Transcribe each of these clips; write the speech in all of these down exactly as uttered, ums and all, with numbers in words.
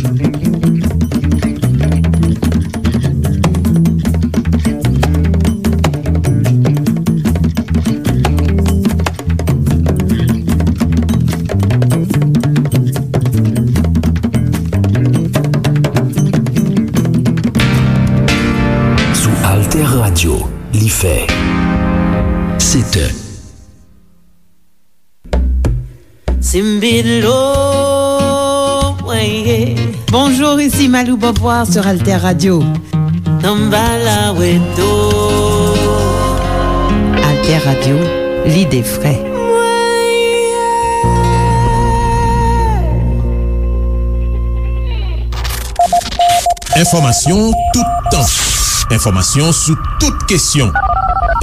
Sou Alter Radio, li fè sèt è. Simbilo, weye. Bonjour, ici Malou Beauvoir sur Alter Radio. Tambala weto. Alter Radio, l'idée vraie. Enfòmasyon toutan. Enfòmasyon sou tout kesyon.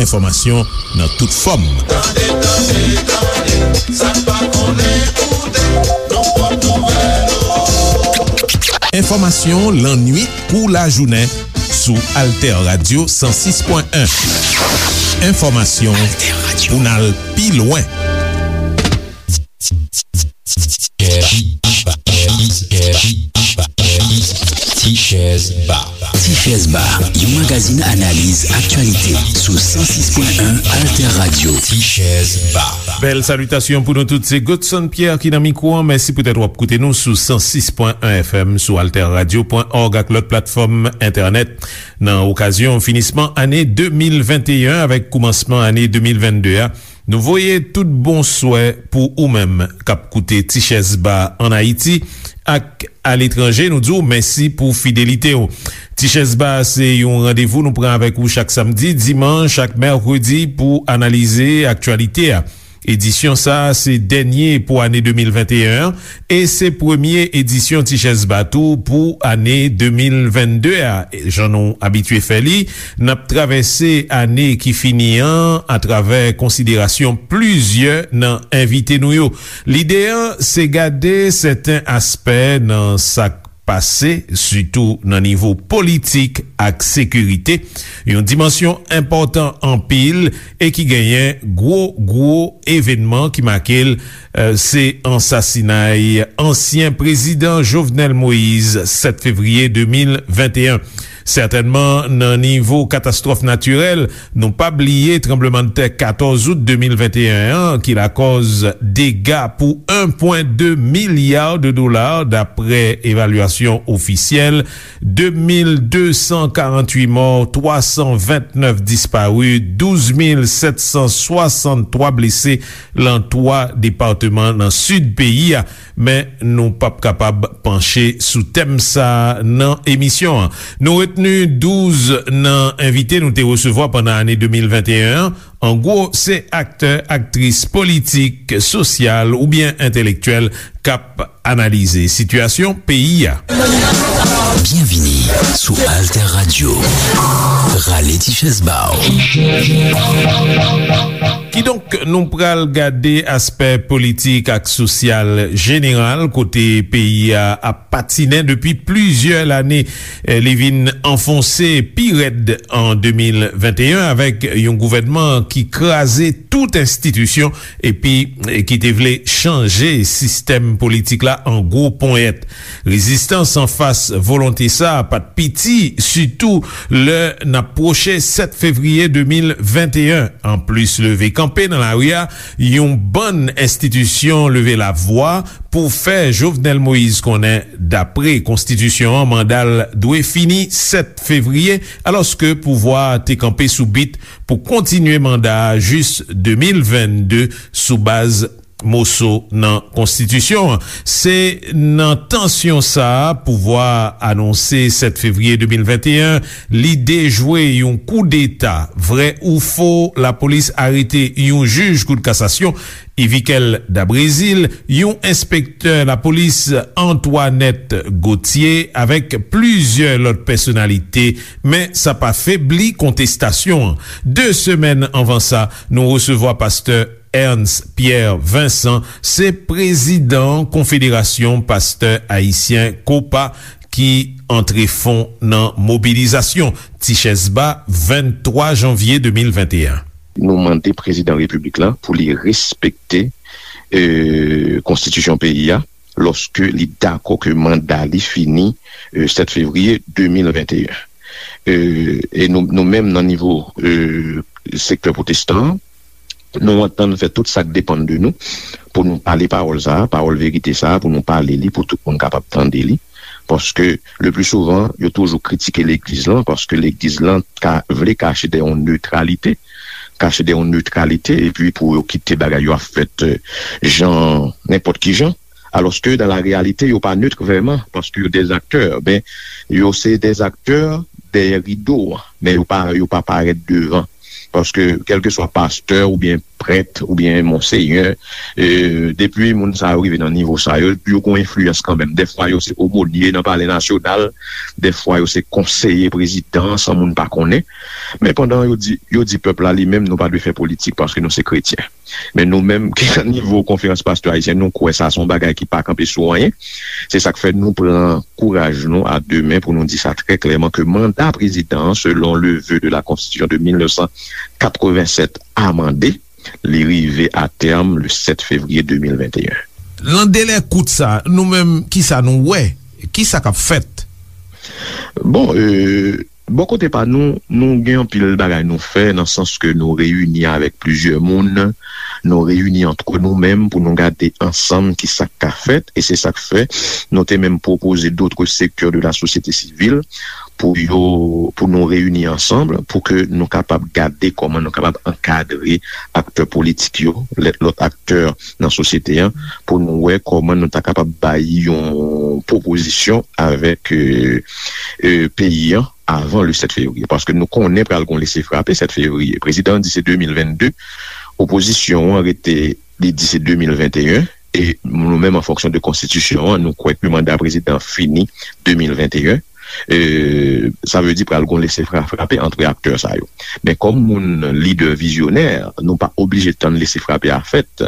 Enfòmasyon nan tout fòm. Tande, tande, tande, sa n pa konnen koute, nan pòt nouvèl yo. Enfòmasyon lannuit kou lajounen sou Alter Radio san sis pwen en. Enfòmasyon pou n al pi lwen. Tichèz Ba. Tichèz Ba, yon magazin analiz aktyalite sou san sis pwen en Alter Radio. Tichèz Ba. Bèl salitasyon pou nou tout. Se Godson Pierre ki nan mikwo an. Mèsi poutèt w ap koute nou sou san sis pwen en F M, sou alter radio pwen org ak lòt platfòm entènèt. Nan okazyon finisman ane de mil venteyen avèk koumansman ane de mil vennde a, nou voye tout bon swè pou ou menm k ap koute Tichèz Ba ann Ayiti ak aletranje. Nou di w mèsi pou fidelite w. Tichèz Ba se yon randevou nou pran avèk ou chak samdi, dimanch ak mèkredi pou analize aktyalite a. Edisyon sa a se dènye pou ane de mil venteyen an e se premye edisyon Tichèz Ba tou pou ane de mil vennde a. Jan nou abitye fè li, n ap travèse ane ki fini an atravè konsiderasyon plizyè nan envite nou yo. Lide an se gade sèten aspè nan sa k pase, sitou nan nivo politik ak sekirite, yon dimansyon enpòtan anpil e ki genyen gwo, gwo evènman ki make l, eh, se ansasinay ansyen prezidan Jovenel Moïse, sèt fevriye de mil venteyen. Sètènman, nan nivo katastwòf natirèl, nou pa bliye tranblemanntè katòz out de mil venteyen an, ki lakòz dega pou en pwen de milya de dola, daprè evalyasyon ofisyèl, de mil de san karannwit mò, twa san vennèf dispari, douz mil sèt san swasanntwa blese lan twa depatman nan sid peyi a. Men nou p ap kapab panche sou tèm sa a nan emisyon an. Nou retni douz nan envite nou te resevwa pandan ane de mil venteyen an. An gwo, se aktè, aktris, politik, sosyal oubyen entèlektyèl k ap analize sitiyasyon peyi a. Byenvini sou Alter Radio. Rale ti chèz ba w. Kidonk, nou pral gade aspè politik ak sosyal jeneral kote peyi a ap patinen depi plizyè lane. Eh, li vin anfonse pi rèd an de mil venteyen avèk yon gouvènman ki kraze tout enstitisyon epi, eh, ki te vle chanje sistèm politik la an gwo ponyèt. Rezistans anfas volonte sa a pa t piti, sitou lè n ap pwoche sèt fevriye de mil venteyen. Anplis leve kanpe nan lari a, yon bann enstitisyon leve lavwa pou fè Jovenel Moïse konnen, dapre konstitisyon an, manda l dwe fini sèt fevriye, alòske pouvwa a te kanpe sou bit pou kontinye manda a jis de mil vennde sou baz moso nan konstitisyon an. Se nan tansyon sa a, pouvwa a anonse sèt fevriye de mil venteyen, li dejwe yon koudeta. Vrè ou fo, lapolis arete yon jij kout kasasyon, Yvikel Dabrezil, yon enspektè lapolis, Antoinette Gauthier, avèk plizyè lòt pèsonalite, men sa pa febli kontestasyon an. De semèn anvan sa, nou resevwa pastè Ernst Pierre Vincent, se prezidan Konfederasyon Pastè Ayisyen, kopa, ki antre fon nan mobilizasyon. Tichèz Ba, venntwa janvye de mil venteyen. Nou mande prezidan repiblik la pou li respekte, e, konstitisyon peyi a, lòske li dakò ke manda li fini, e, sèt fevriye de mil venteyen. E, e nou, nou menm nan nivo, e, sektè pwotestan an, nou antann fè tout sa k depann de nou pou nou pale pawòl sa a, pawòl verite sa a, pou nou pale li, pou tout moun kapab tande li. Paske, le pli souvan, yo toujou kritike legliz lan, paske legliz lan ka vle kache dèyè yon netralite, kache dèyè yon netralite, epi pou yo kite bagay yo ap fèt, e, jan, nenpòt ki jan. Alòske, dan la reyalite, yo pa net vrèman, paske yo dèzaktè. Ben, yo se dèzaktè dèyè rido a, men yo pa, yo pa parèt devan. Paske, kèlkeswa pastè oubyen prèt oubyen monsenyè, e, depi moun sa yo rive nan nivo sa yo, yo gon enfliyans kanmenm. Dèfwa, yo se omonye nan Palè Nasyonal, dèfwa, yo se konseye prezidan, san moun pa konnen. Men pandan yo di, yo di pèp la, li menm, nou pa dwe fè politik paske nou se kretyen. Men nou menm ki nan nivo Konferans Pastè Ayisyen, nou kwè sa se yon bagay ki pa kanpe sou anyen. Se sa k fè nou pran kouraj nou a de men pou nou di sa trè klèman ke manda prezidan an, selon le vœu de la Constitution de mil nèf san katrevennsèt amande, li rive a tèm le sèt fevriye de mil venteyen. Nan delè kout sa, nou menm, kisa nou wè? Kisa k ap fèt? Bon, e, bò kote pa nou, nou gen anpil bagay nou fè, nan sans ke nou reyini avèk plizyè moun, nou reyini antre nou menm pou nou gade ansanm ki sa k ka fèt, e se sa k fè nou te menm pwopoze d'autres secteurs de la société civile pou yo, pou nou reyini ansanm, pou ke nou kapab gade kòman nou kapab ankadre aktè politik yo, lè, lòt aktè nan sosyete an, pou nou wè kòman nou ta kapab bay yon pwopozisyon avèk, e, e, peyi an avan le sèt fevriye. Paske nou konnen pral gon lese frape sèt fevriye. Prezidan an di se de mil vennde, opozisyon an rete, li di se de mil venteyen, e nou menm, an fonksyon de konstitisyon an, nou kwè ke manda prezidan an fini de mil venteyen. E, sa vle di pral gon lese fra-, frape antre aktè sa yo. Men kòm moun lidè vizyonè, nou pa oblije tann lese frape a fèt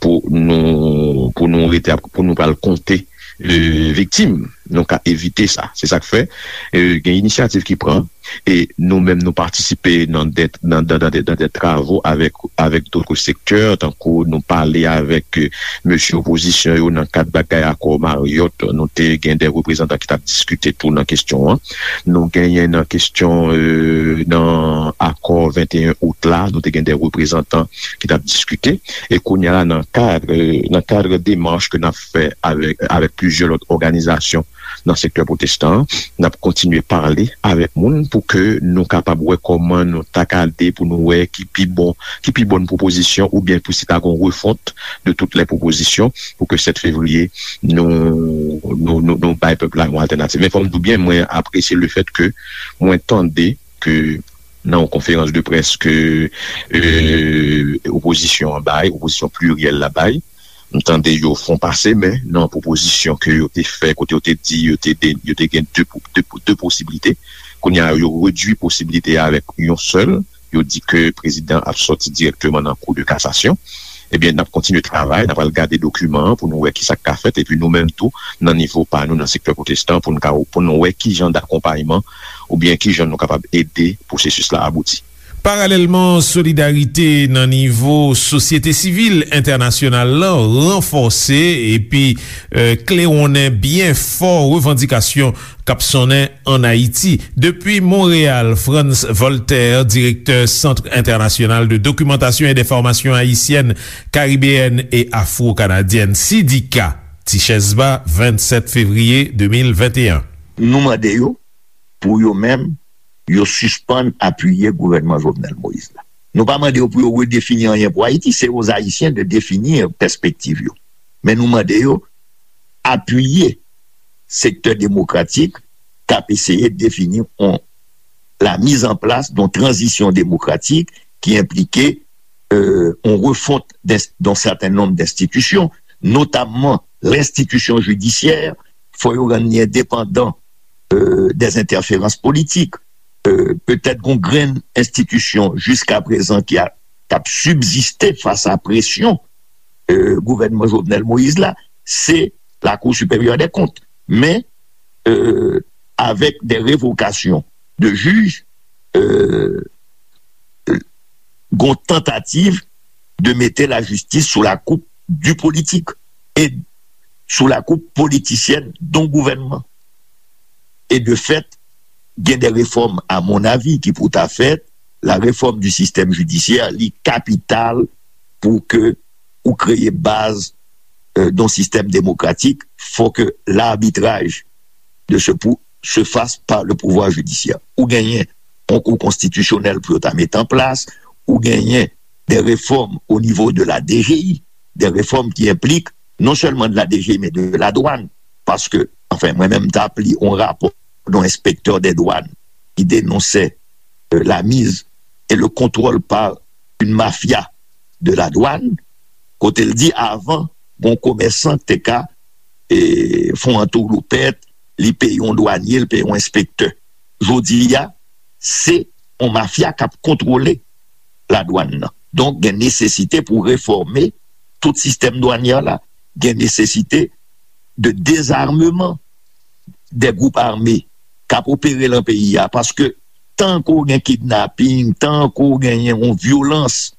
pou nou, pou nou rete ap, pou nou pral konte, e, viktim. Nou ka evite sa. Se sa k fè, e, gen inisyativ ki pran, e nou menm nou patisipe nan de, nan, nan, nan de, nan de travo avèk, avèk d'autres secteurs, tankou nou pale avèk, e, mesye opozisyon yo nan kad bagay akò Marriott, nou te gen de reprezantan ki t ap diskite tou nan kesyon an. Nou genyen nan kesyon, e, nan akò venteyen out la, nou te gen de reprezantan ki t ap diskite. E kounye a la, nan kad, nan kad demach ke n ap fè avèk, avèk plizyè lòt òganizasyon nan sektè pwotestan an, n ap kontinye pale avèk moun pou ke nou kapab wè kòman nou ta gade pou nou wè ki pi bon, ki pi bòn pwopozisyon oubyen pou si ta gon refont de toutes les propositions pou ke sèt fevriye nou, nou, nou, nou bay pèp la yon altènativ. Men fò m di w byen, mwen apresye le fèt ke mwen tande ke nan yon konferans de près ke, e, opozisyon an bay, opozisyon pliryèl la bay, m tande yo fon pase men nan pwopozisyon ke yo te fè, kote yo te di yo te de, yo te gen de, de, de posiblite. Kounye a, yo redui posiblite a avèk yon sèl. Yo di ke prezidan ap sòti dirèkteman nan kou de kasasyon. Ebyen, n ap kontinye travay, n ap al gade dokiman an pou nou wè ki sa k ka fèt, epi nou menm tou, nan nivo pa nou, nan sektè pwotestan, pou nou ka, pou nou wè ki jan dakonpayman oubyen ki jan nou kapab ede pwosesis la abouti. Paralèlman, solidarite nan nivo sosyete sivil entènasyonal la ranfòse epi, e, klewonnen byen fò revandikasyon k ap sonnen ann Ayiti. Depi Monreyal, Frantz Voltaire, direktè Centre International de Documentation et d'Information Haïtienne, Caribéenne et Afro-Canadienne, sidika, Tichèz Ba, vennsèt fevriye de mil venteyen. Nou mande yo pou yo menm, yo sispann apiye gouvènman Jovenel Moïse la. Nou pa mande yo pou yo redefini anyen pou Ayiti, c'est aux Haïtiens de définir pèspektiv yo. Men nou mande yo apiye sektè demokratik k ap eseye defini yon, la mise en place d'une transition démocratique qui implique, euh, une refonte d'un certain nombre d'institutions, notamment l'institution judiciaire, fò yo rann li endepandan, euh, des interférences politiques. Euh, petèt gon grenn enstitisyon jiskaprezan ki a, k ap sibziste fas a presyon, euh, gouvènman Jovenel Moïse la, se Lakou Siperyè dè Kont. Men, euh, avèk de revokasyon de jij, euh, gon tantativ de mete lajistis sou la koup di politik. E sous la coupe politicienne d'un gouvernement. Et de fait, gen de réformes, à mon avis, ki pou ta fèt. La réforme du système judiciaire, li kapital pou ke ou kreye baz euh, d'un système démocratique, faut que l'arbitrage de ce pou se fasse par le pouvoir judiciaire. Ou genyen yon kou konstitisyonèl pou yo ta met an plas, ou genyen des réformes au niveau de la D G I, des réformes qui impliquent non seulement de la D G I, mais de la douane. Parce que, enfin, mwen menm, m t ap li yon rapò d'un inspecteur des douanes qui dénonçait euh, la mise et le contrôle par une mafia de la douane, kote l di avan, gon komèsan te ka e, fè yon antoulopèt, li peye yon dwanye, li peye yon enspektè. Jodi a, se yon mafya k ap kontwole ladwann nan. Donk, gen nesesite pou refòme tout sistèm dwanyè la. Gen nesesite de dezarmeman de gwoup ame k ap opere lan peyi a, paske tan ke w gen kidnaping, tan ke w genyen yon vyolans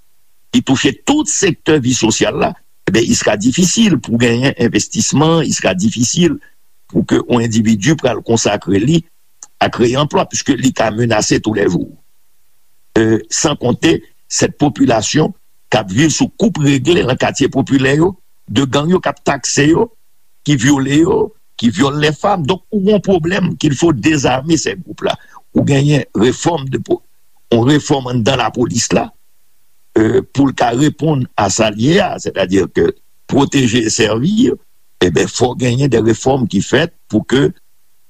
ki touche tout sektè vi sosyal la, ebyen, il sera difficile pou genyen envestisman, il sera difficile pou ke yon endividi pral konsakre li a kreye anplwa, puiske li ka menase tou lè jou. Euh, san konte sèt popilasyon k ap viv sou koup regle lan katye popilè yo, de gang yo k ap takse yo, ki vyole yo, ki vyole les femmes. Donk, ou gon pwoblèm qu'il faut désarmer ces groupes-là. Ou genyen refòm de po- yon refòm anndan lapolis la, euh, pou l ka reponn a sa l ye a, sètadi ke pwoteje e sèvi, ebyen, fò genyen de refòm ki fèt pou ke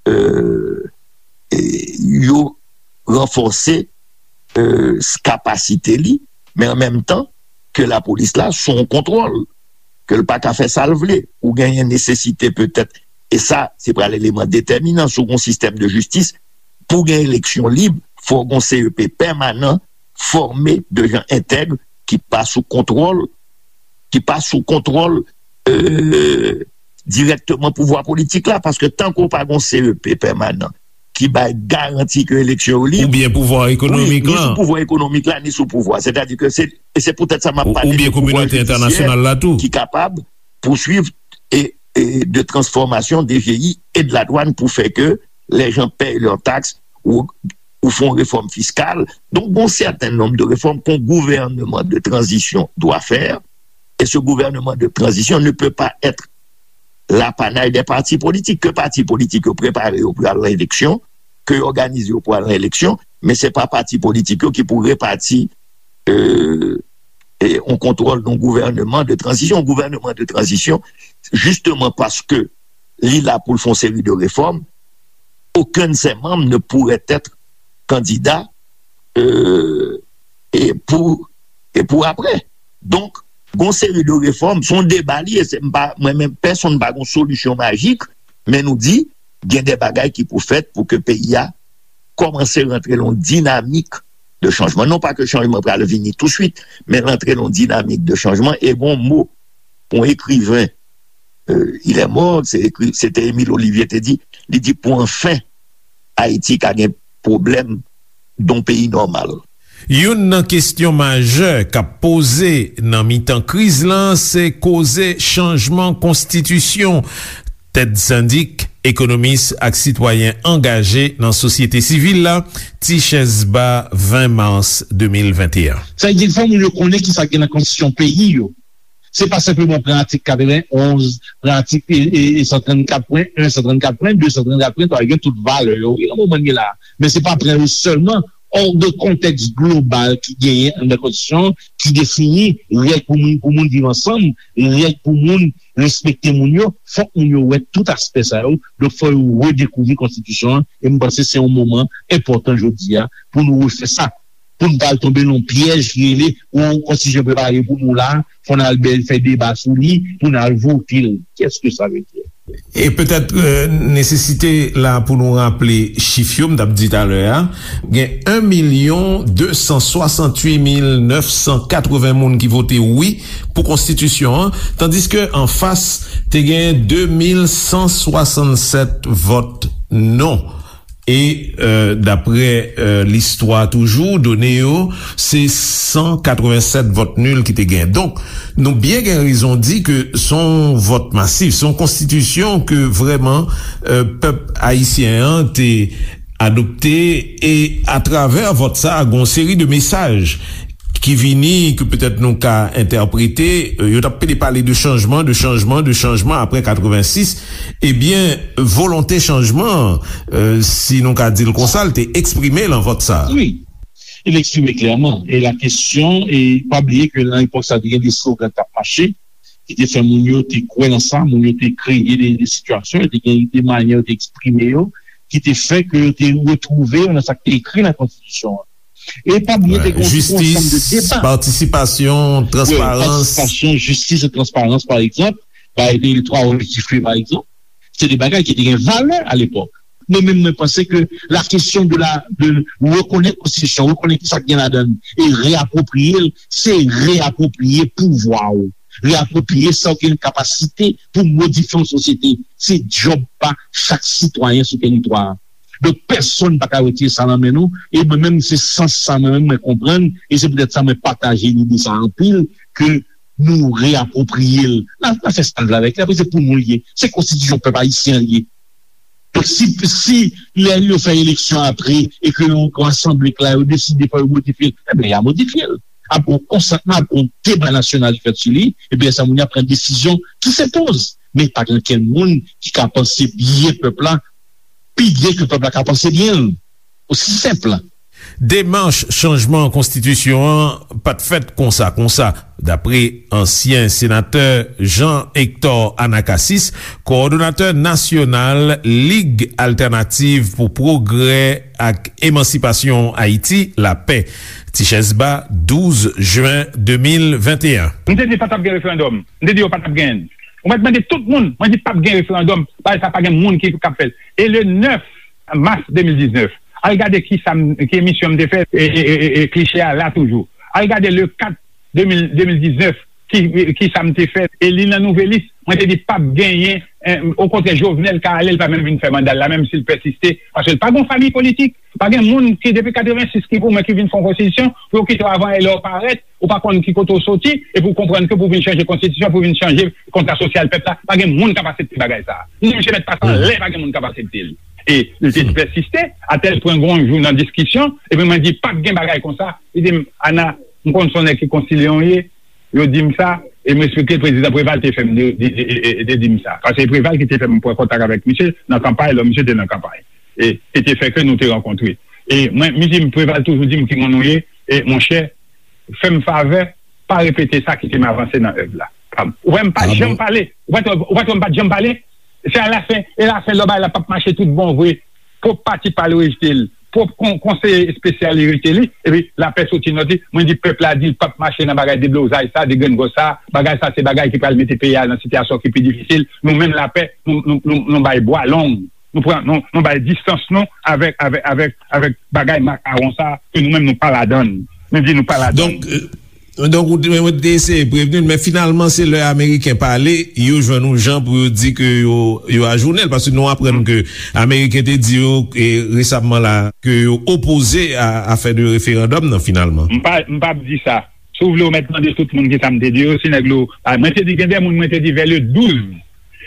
euh, e, yo ranfòse euh, kapasite li, men an menm tan ke lapolis la sou yon kontwòl, ke l pa ka fè sa l vle. Ou genyen nesesite petèt, e sa se pral eleman detèminan sou yon sistèm de jistis, pou gen eleksyon lib, fò gen C E P pèmanan, fòme de jan entèg, ki pa sou kontwòl, ki pa sou kontwòl euh, dirèkteman pouvwa politik la, paske tankou w pa gen C E P pèmanan ki bay garanti ke eleksyon yo lib, oubyen pouvwa ekonomik la, ni sou pouvwa ekonomik la, ni sou pouvwa. Sètadi ke se, e se poutèt sa m ap pale de pouvwa jidisye ki kapab pouswiv e, e de transformasyon D G I e de la douane pour faire que les gens payent leurs taxes ou, ou font une réforme fiscale. Donc, bon, certain nombre de réformes qu'un gouvernement de transition doit faire, et ce gouvernement de transition ne peut pas être l'apanay des partis politiques. Ke pati politik yo prepare yo pou al nan eleksyon, ke yo òganize yo pou al nan eleksyon, men se pa pati politik yo ki pou repati euh, e yon kontwòl d'un gouvernement de transition. Yon gouvènman de tranzisyon, jisteman paske li la pou l fè yon seri de réformes, aucun de ses membres ne pourrait être candidat euh, e pou, e pou apre. Donk, gon seri de refòm, se yon deba li ye, se m pa, mwen menm pèsonn pa gon solisyon majik, men nou di, gen de bagay ki pou fèt pou ke peyi a kòmanse rantre lan yon dinamik de chanjman. Non pa ke chanjman pral vini touswit, men rantre lan yon dinamik de chanjman. E gon mo, yon ekriven, euh, il est mort, se ekri, se te Émile Olivier te di, li di, pour enfin Ayiti ka gen pwoblèm d'un pays normal. Youn nan kesyon majè k ap poze nan mitan kriz lan se koze chanjman konstitisyon. Ted Syndic, ekonomis ak sitwayen angaje nan sosyete sivil la, Tichèz Ba, ven mas de mil venteyen. Sa vle di, fò moun yo konnen kisa ki gen nan konstitisyon peyi yo. Se pa senpleman pran atik katrevenn onz, pran atik e, e, e san trannkat pwen en, san trannkat pwen de, san trannkat pwen twa, yo gen tout valè yo. Wi, nan moman n ye la. Men se pa pran yo sèlman, hors de kontèks global ki genyen anndan konstitisyon an, ki defini règ pou moun, pou moun viv ansanm, règ pou moun respekte moun yo, fòk moun yo wè tout aspè sa yo. Donk, fò yo redekouvri konstitisyon an. E m panse se yon moman enpòtan jodi a pou nou refè sa. Pou n pa al tonbe nan yon pyèj ki rele, yon konstitisyon prepare pou nou la, fò n al bèl fè deba sou li, pou n al vote l. Qu'est-ce que ça veut dire? E petèt euh, nesesite la pou nou raple chif yo m t ap di talè a, gen en milyon de san swasanntuit mil nèf san katreven moun ki vote wi pou konstitisyon an, tandiske anfas te gen de mil san swasannsèt vòt non. E, euh, daprè, euh, listwa toujou, done yo, se san katrevennsèt vòt nil ki te gen. Donk, nou byen gen rezon di ke se yon vòt masif, se yon konstitisyon ke vrèman, euh, pèp ayisyen an te adopte, e atravè vòt sa, gen yon seri de mesaj ki vini, ke petèt nou ka entèprete, euh, yo t ap pede pale de chanjman, de chanjman, de chanjman apre katrevensis, ebyen, volonte chanjman, euh, si nou ka di l konsa, l te eksprime l nan vòt sa. Wi, li eksprime klèman. E la kesyon, e pa bliye ke nan epòk sa, te gen de slogan k t ap mache, ki te fè moun yo te kwè nan sa, moun yo te kreye de, de sitiyasyon, yo te gen de manyè yo te eksprime yo, ki te fè ke yo te retwouve yo nan sa k te ekri nan konstitisyon an. E pa bliye, te gen yon ansanm de deba. Patisipasyon, transparans. Patisipasyon, jistis e transparans, pa egzanp, bagay de L twa Roger Giffré, pa egzanp. Se de bagay ki te gen valè alepòk. Mwen menm, mwen panse ke la kesyon de la, de rekonèt konstitisyon, rekonèt ki sa k gen ladan l, e reapwopriye l, se reapwopriye pouvwa w, reapwopriye sa w gen kapasite pou modifye yon sosyete. Se djòb pa chak sitwayen sou teritwa a. Donk, pèsonn pa ka retire sa nan men nou, e mwen menm, se sans sa mwen menm, mwen konprann, e se poutèt sa mwen pataje lide sa anpil, ke nou reapwopriye l. N a, n a fè sa n vle avèk li, apre se pou nou l ye. Se konstitisyon pèp ayisyen an l ye. Donk, si, si lè yo fè eleksyon apre, e ke yon, yon asanble k la, yo deside fò yo modifye l, ebyen, y a modifye l. Ap gen yon konsantman, ap gen yon deba nasyonal ki fèt sou li, ebyen, sa moun yo ap pran desizyon ki se poz. Men pa gen okenn moun ki ka panse byen pèp la, pi byen ke pèp la ka panse byen l. Osi senp. Demach chanjman konstitisyon an pa t fèt konsa konsa, dapre ansyen senatè Jean Hector Anacasis, kowòdonatè nasyonal Lig Altènativ pou Pwogrè ak Emansipasyon Ayiti, lapè. Tichèz Ba, douz jen de mil venteyen. M te di pa t ap gen referandòm. M te di yo pa t ap genyen l. Ou mèt mande tout moun, mwen di p ap gen referandòm, bagay sa pa gen moun ki k ap fè l. E le nèf mas de mil diznèf, al gade ki sa m, ki emisyon m te fè, e, e, e, e, e kliche a la toujou. Al gade le kat de mil, de mil diznèf, ki, ki sa m te fè, e li nan Nouvelis, mwen te di p ap genyen, eh, okontrè, Jovenel ka ale, l pa menm vin fè manda l la, menm si l pèsiste, paske l pa gen yon fami politik, pa gen moun ki, depi katrevensis, ki pou mwen, ki vin fè yon konstitisyon, pou yo kite w avan e lè w parèt, ou pa konn ki kote w soti, epi w konprann ke pou w vin chanje konstitisyon, pou w vin chanje kontra sosyal pèp la, pa gen moun k ap aksepte bagay sa a. Ni misye mèt pase anlè, pa gen moun k ap aksepte l. E li te pèsiste, atèl pwen gon jou nan diskisyon, epi mwen di, p ap gen bagay konsa. Li di m, Ana, m konn se yon nèg ki konsilye w ye, yo di m sa, e m respekte prezidan Preval te fè m de, de, de, de, de di m sa. Paske se Preval ki te fè m pran kontak avèk misye nan kanpay, lò misye te nan kanpay. E, e te fè ke nou te rankontre. E mwen, misye Preval toujou di m ki moun ou ye, e monchè, fè m favè, pa repete sa, kite m avanse nan èv la. Ou wè m pa janm pale. Ou pa t, ou pa t wè m pa t janm pale. Se alafen, e lafen lè bagay la p ap mache tout bon vre. Pwòp pati pa l rejte l. Pwòp kon, konseye espesyal li rejte li. Epi lapè soti nòt li. Mwen di pèp la di l p ap mache nan bagay deblozay sa, degrengòs sa. Bagay sa se bagay ki pral mete peyi a nan sitiyasyon ki pi difisil. Nou menm lapè, nou, nou, nou, nou bay bwa long. Nou pran, nou, nou bay distans nou avèk, avèk, avèk, avèk bagay makawon sa ke nou menm nou pa ladan l. Nou di nou pa ladan l. Donk, euh, donk, ou te, ou te eseye prevni l, men finalman, se lè Ameriken pale, yo jwenn yon jan pou yo di ke yo, yo ajounen l, paske nou aprann ke Ameriken te di yo, e, resamman la, ke yo opoze a, a fè de referandòm nan, finalman. M pa, m p ap di sa. Si w vle, ou mèt mande tout moun kisa m te di yo, si nèg lo, a, mwen te di, gen de moun, mwen te di, vè le douz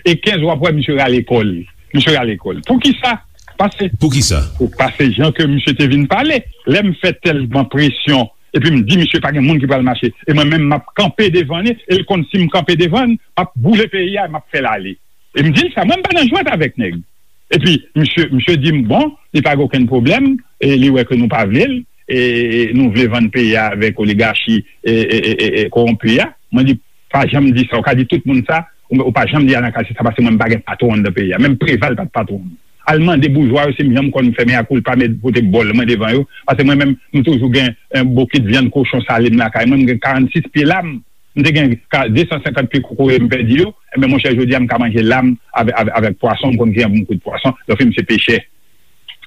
e kenz, w ap wè misye rale kò l. Misye rale kò l. Poukisa? Paske Poukisa? Ou, paske jan ke misye te vin pale, lè m fè tèlman presyon, epi m di misye pa gen moun ki pral mache, e mwen menm m ap kanpe devan li, e l konn si m kanpe devan l, m ap boule peyi a, m ap fè l ale. E m di l sa, mwen m pa nan jwèt avèk nèg. Epi, misye, misye di m, bon, li pa gen okenn pwoblèm, e li wè ke nou pa vle l, e nou vle vann peyi a avèk oligachi, e, e, e, e, e kowonpi a. Mwen di, pa janm di sa, ou ka di tout moun sa, ou, ou pa janm di Anacasis sa, paske mwen m pa gen patwon anndan peyi a. Menm Preval pa t patwon m. Al mande boujwa yo si m janm konn fè mea culpa, met pote bòl mwen devan yo, paske mwen menm, m toujou gen, eh, bokit vyann kochon sale m lakay mwen, m gen karannsis pye lam, m te gen ka, de san senkant pye kokoye m pèdi yo, enben monchè, jodi a m ka manje lam avè-, avè-, avèk pwason, m konn ki jan pou m kwit pwason, lòfi m se pechè.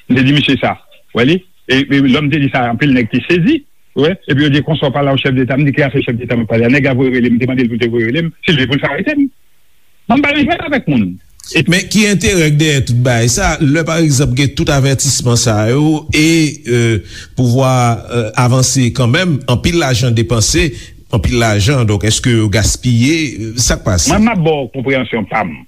M te di misye sa, w wè li? E, e lè m te di sa, anpil nèg te sezi, w wè, epi yo di, konsa w pale a yon chèf deta, m di, ki afè chèf deta m ap pale a? Nèg la voye rele m, m te mande l pou l te voye rele m, si l vle pou l fè arete m. Mwen m pa nan jwèt avèk moun. Men ki enterè k dèyè tout bagay sa, lè pa egzanp gen tout avètisman sa yo e pouvwa avanse kanmenm, anpil lajan depanse, anpil lajan, donk èske yo gaspiye? Sa k pase? Mwen m ap ba w konpreyansyon pa m.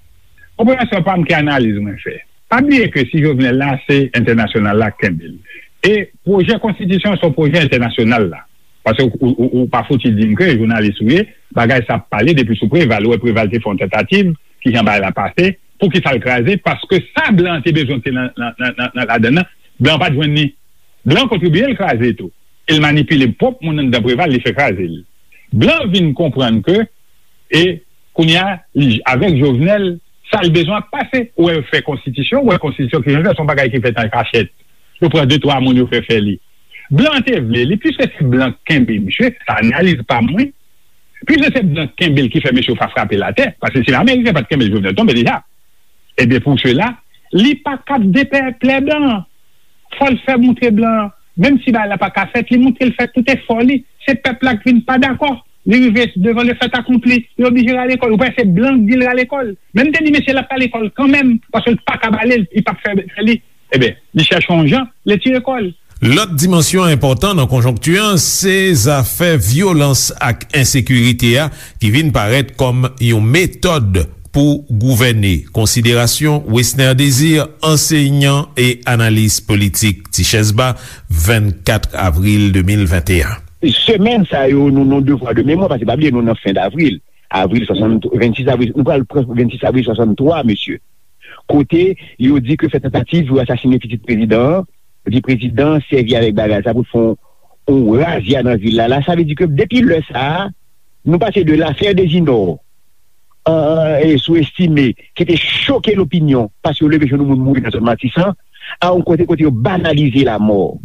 Konpreyansyon pa m ki analiz mwen fè. Pa bliye ke si Jovenel la, se entènasyonal la k kenbe l. E pwojè konstitisyon se yon pwojè entènasyonal la. Paske ou, ou, ou pa fouti di m ke jounalis ou ye, bagay sa ap pale depi sou Preval. Ou wè Preval te fè yon tantativ, kijan bagay la pase, poukisa l kraze? Paske sa blan an te bezwen te nan, nan, nan, nan, nan ladann nan, blan an pa t jwenn li. Blan an kontribiye l kraze tou. E l manipile pwòp moun anndan Preval, li fè kraze l. Blan vin konprann ke, e kounye a, li, avèk Jovenel, sa l bezwen ap pase. Ou wè yo fè konstitisyon, ou wè konstitisyon ki jan l fè, se yon bagay ki fèt an kachèt. Yo pran de twa moun, yo fè fè li. Blan te vle li, piske se blan k kenbe misye, sa analiz pa mwen. Piske se blan k kenbe l ki fè mesye yo pa frape l atè, paske si Ameriken pa t kenbe l, Jovenel tonbe deja. Ebyen, pou sela, li pa kab deplè blan an. Fò l fè moutre blan an, menm si bagay la pa ka fèt, li moutre l fè tout efò li. Se pèp la k vin pa dakò. Li rive devan le fait accompli, li oblije rale kò l. Ou panse se blan k di l rale kò l? Men m te di mesye l ap rale kò l kanmenm, paske l pa kab ale, li p ap fè, fè li. Ebyen, li chèche yon jan, li tire kò l. Lòt dimansyon enpòtan nan konjonkti an, se zafè vyolans ak ensekirite a ki vin parèt kòm yon metòd pou gouvène. Konsiderasyon Wesner Désir, ansenyan e analis politik, Tichèz Ba, vennkat avril de mil venteyen. Semèn sa yo, nou, nou devwa de memwa, paske pa bliye, nou nan fen davril. Avril swasanntrwa, vennsis avril, nou pral pran vennsis avril swasanntwa, mesye. Kote yo di ke fè tantativ pou asasinen pitit prezidan an, epi prezidan an sèvi avèk bagay sa pou l fè yon, yon razya nan vil la. La, sa vle di ke depi lè sa a, nou pase de l'affaire des Inor, an, an, e sou estime, ki te choke lopinyon, paske yo leve joun moun mouri nan zòn Matisan, a yon kote kote yo banalize lamò.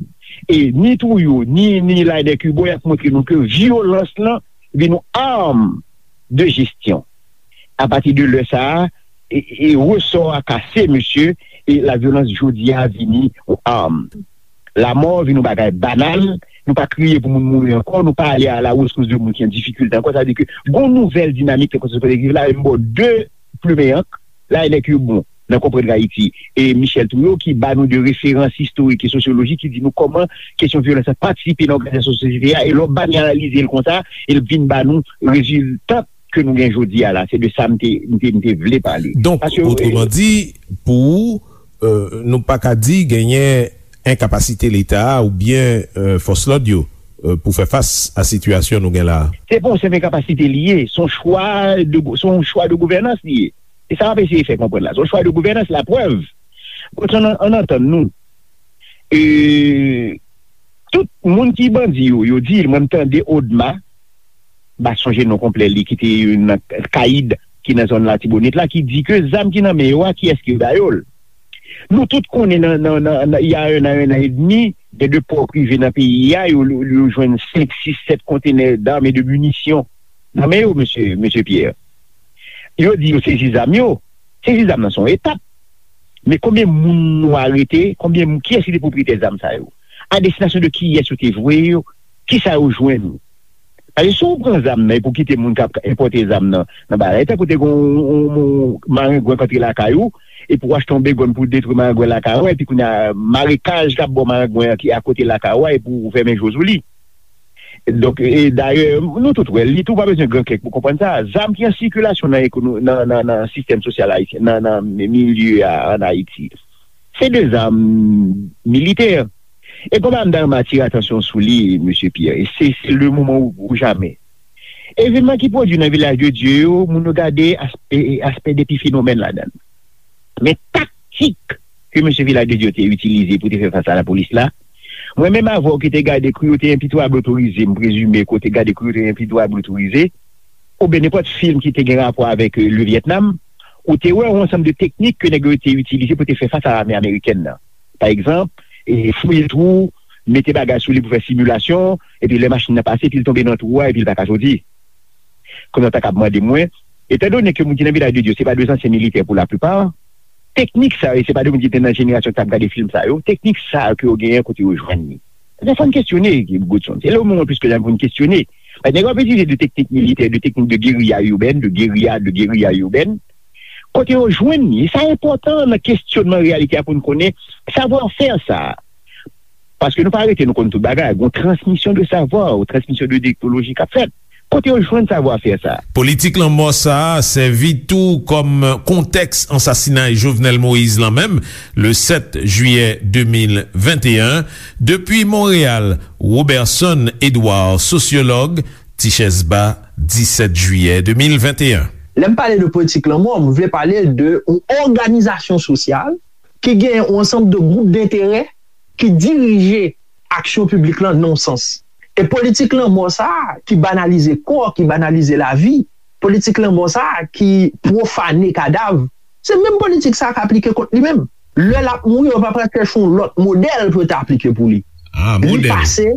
E ni Trouillot, ni, ni Laënnec Hubaut, y ap montre nou ke vyolans lan vin yon arm de jesyon. Apati de lè sa a, e, e resò a kase, mesye, e lavyolans jodi a vini yon arm. Lamò vin yon bagay banal, nou pa kriye pou moun mouri ankò, nou pa ale a la rescousse de moun ki an difikilte ankò. Sa vle di ke gon nouvèl dinamik ki konstitye kolektif la, e m ba w de plimen ank, Laënnec Hubaut nan Konprann Ayiti, e Michel Trouillot ki ba nou de referans istorik e sosyolojik ki di nou kòman kesyon vyolans la patisipe nan òganizasyon sosyete a, e lè w ba n analize l konsa, e l vin ba nou rezilta ke nou gen jodi a la. Se de sa m te, m te, m te vle pale. Donk, otreman di, pou ou, euh, nou pa ka di genyen enkapasite Leta a oubyen, euh, fòs lòd yo, euh, pou fè fas a sitiyasyon nou gen la a? Se pa yon senp enkapasite li ye, se yon chwa de, se yon chwa de gouvènans li ye. E sa m ap eseye fè konprann la. Se yon chwa de gouvènans, laprèv. Bon, ann, ann antann nou. E, tout moun ki bandi yo, yo di, mwen m tande Odma, m pa sonje non konplè li, ki te nan Kayid, ki nan zòn Latibonit la, ki di ke zam ki nan men yo a, kiyès ki ba yo l? Nou tout konnen nan, nan, nan, nan, il y a un an, un an et demi, gen de pò prive nan peyi a, yo, yo, yo jwenn senk, sis, sèt kontenè d'armes et de munitions nan men yo, mesye, mesye Pierre. Yo di yo sezi zam yo. Sezi zam nan se yon etap. Men konbyen moun nou arete? Konbyen moun, kiyès ki te pwopriyetè zam sa yo? A destinasyon de kiyès yo te voye yo? Kisa yo jwenn? Paske si w pran zam nan epi w kite moun k ap enpòte zam nan, nan bagay, tankou te gen yon, yon, yon marengwen k antre lakay ou, epi w achte yon begòn pou detwi marengwen lakay ou, epi kounye a, marekaj k ap ba w marengwen an ki akote lakay ou a, epi w fèmen je w sou li. Donk, e dayè, nou tout wè, li tou pa bezwen gran kèk pou konprann sa. Zam ki an sikilasyon nan ekono-, nan, nan, nan sistèm sosyal ayisyen, nan, nan milye a ann Ayiti, se de zam militè. E konba m ta renmen atire atansyon sou li, mesye Pierre, e se, se le moman ou, ou jamè. Evenman ki pwodui nan Vilaj de Dye yo, moun yo gade aspè, aspè de epifinomèn ladan l. Men taktik ke mesye Vilaj de Dye te itilize pou te fè fas a lapolis la, mwen menm avè w ki te gade Cruauté impitoyable autorisée, m prezime ke w te gade Cruauté impitoyable autorisée, oubyen nenpòt fim ki te gen rapò avèk, euh, le Vietnam, ou te wè yon ansanm de teknik ke nèg yo te itilize pou te fè fas a lame amerikèn nan. Pa egzanp, e fouye twou, mete bagay sou li pou fè similasyon, epi lè machin nan pase, epi l tonbe nan twou a, epi l pa ka soti. Kounye a w ta kab mande mwen, etandone ke moun ki nan Vilaj de Dye, se pa de zansyen militè pou laplipa, teknik sa yo, e se pa de moun ki te nan jenerasyon ki t ap gade fim sa yo, teknik sa yo ke yo genyen, kote yo jwenn li? Ebyen, fò n kesyone, Godson. Se le moman plis ke jamè pou n kesyone. Paske nèg yo ap itilize de teknik militè, de teknik de guérilla urbaine, de guérilla, de guérilla urbaine, Kote yo jwenn li? E sa enpòtan nan kesyonman reyalite a pou n konnen savwa fè sa a. Paske nou pa rete, nou konn tout bagay. Gon transmisyon de savwa, yon transmisyon de teknoloji k ap fèt. Kote yo jwenn savwa fè sa a? Politik lanmò sa a sèvi tou kòm kontèks ansasinay Jovenel Moïse lan menm, le sèt jiyè de mil venteyen. Depi Monreyal, Roberson Edouard, sosyològ, Tichèz Ba, disèt jiyè de mil venteyen. Lè m pale de politik lanmò, m vle pale de yon òganizasyon sosyal ki gen yon ansanm de gwoup denterè ki dirije aksyon piblik lan nan yon sans. E politik lanmò sa a ki banalize kò, ki banalize lavi, politik lanmò sa a ki pwofane kadav, se menm politik sa a k aplike kont li menm. Lè l ap mouri, yo pa pral chèche yon lòt modèl pou yo ta aplike pou li. Ah, li modèl. Pase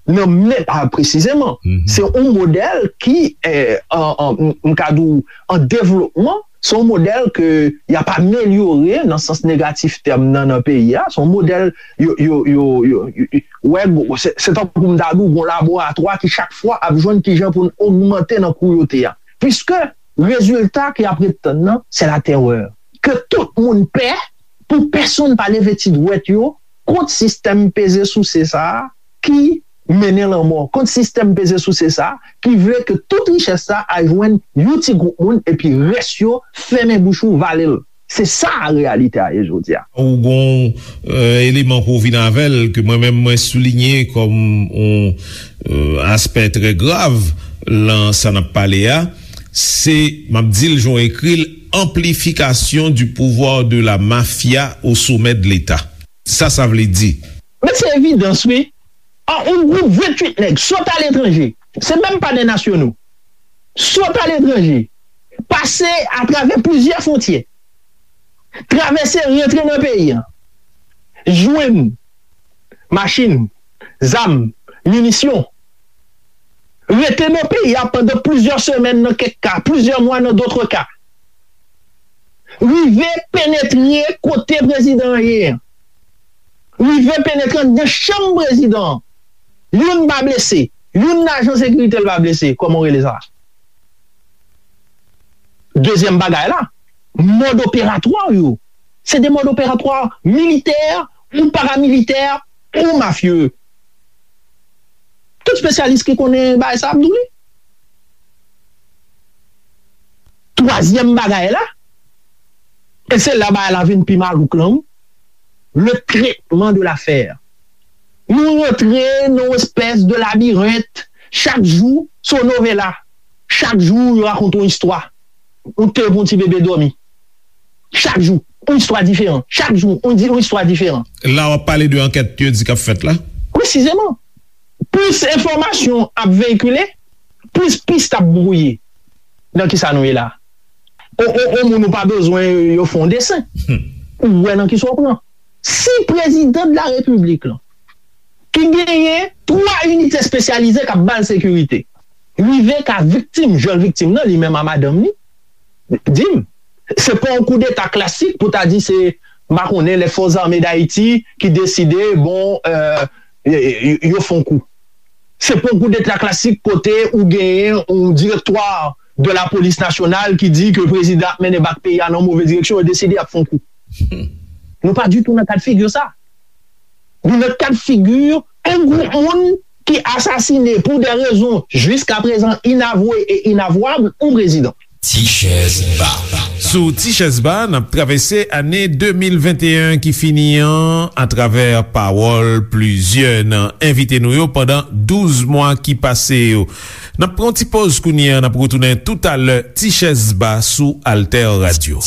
nan men, ah, presizeman. Mhm. Se yon modèl ki, eh, an, an, m, m ka di w, an devlopman, se yon modèl ke y ap amelyore nan sans negatif tèm nan, nan peyi a. Se yon modèl, yo, yo, yo, yo, yo, yo, wè, se, se tankou m ta di w, yon laboratwa ki chak fwa ap jwenn kijan pou n ogmante nan kwoute a. Piske rezilta ke y ap ret tann nan, se latèrè. Ke tout moun pè, pou pèsonn pa leve ti dwèt yo kont sistèm peze souse sa a ki mennen lanmò, kont sistèm peze souse sa a ki vle ke tout richès sa a al jwenn yon ti gwoup moun epi rès yo fèmen bouch ou, vale l. Se sa reyalite a ye jodi a. Ou gon, euh, eleman pou w vin avè l ke mwen menm mwen soulinye kòm yon, euh, aspè trè grav lan sa n ap pale a, se, m ap di l jan w ekri l, amplifikasyon du pouvoir de la mafia au sommet de l'État. Sa sa vle di? Men se evidans, wi. An, yon gwoup venntuit nèg sot aletranje, se menm pa de nasyono, sot aletranje, pase atravè plizyè fwontyè, travèse, rantre nan peyi a, jwenn machin, zam, minisyon, rete nan peyi a pandan plizyè semèn nan kèk ka, plizyè mwa nan dòt ka, rive penetre kote prezidan an ye a, rive penetre anndan chanm prezidan an. Youn pa blese, youn nan ajan sekirite l pa blese, kòman w rele sa? Dezyèm bagay la, mòd operatwa yo, se de mòd operatwa militè ou paramilitè ou mafye. Tout espesyalis ki konnen bagay sa ap di w li. Twazyèm bagay la, e se la bagay la vin pi malouk lan, wi, le traitement de l'affaire. Nou rantre nan yon espès de labirent, chak jou se yon novela, chak jou yo rakonte yon istwa. Ou te pou yon ti bebe dòmi. Chak jou, yon istwa diferan. Chak jou, yon di, yon istwa diferan. La w ap pale de ankèt yo di k ap fèt la? Presizeman. Plis enfòmasyon ap veyikile, plis pis ap bwouye. Nan kisa nou ye la? O, o, o moun ou pa bezwen yo fè yon desen. Hmm. Ou wè nan kisa w pran. Si prezidan de la repiblik lan, ki genyen twa inite espesyalize k ap ba l sekirite, rive ka viktim, jwenn viktim nan, li menm a madanm li, di m, se pa yon koudeta klasik pou ta di se, m pa konnen, les forces armées d'Haïti ki deside, bon, euh, yo, yo, yo fè yon kou. Se pa yon koudeta klasik kote ou genyen yon direktwa de la polis nasyonal ki di ke prezidan ap mennen bak peyi a nan move direksyon, yo deside y ap fè yon kou. Nou pa ditou nan kad figi sa. Nou nan kad figi yon gwoup moun ki asasine pou de rezon jiskaprezan inavwe e inavwab yon prezidan. Tichèz Ba. Sou Tichèz Ba, n ap travèse ane de mil venteyen ki fini an atravè pawòl plizyè nan envite nou yo pandan douz mwa ki pase yo. N ap pran yon ti poz kounye a, n ap retounen toutalè. Tichèz Ba sou Alter Radio.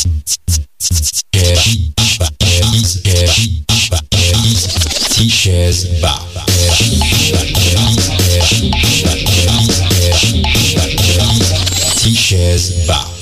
Tichèz Ba. Tichèz Ba.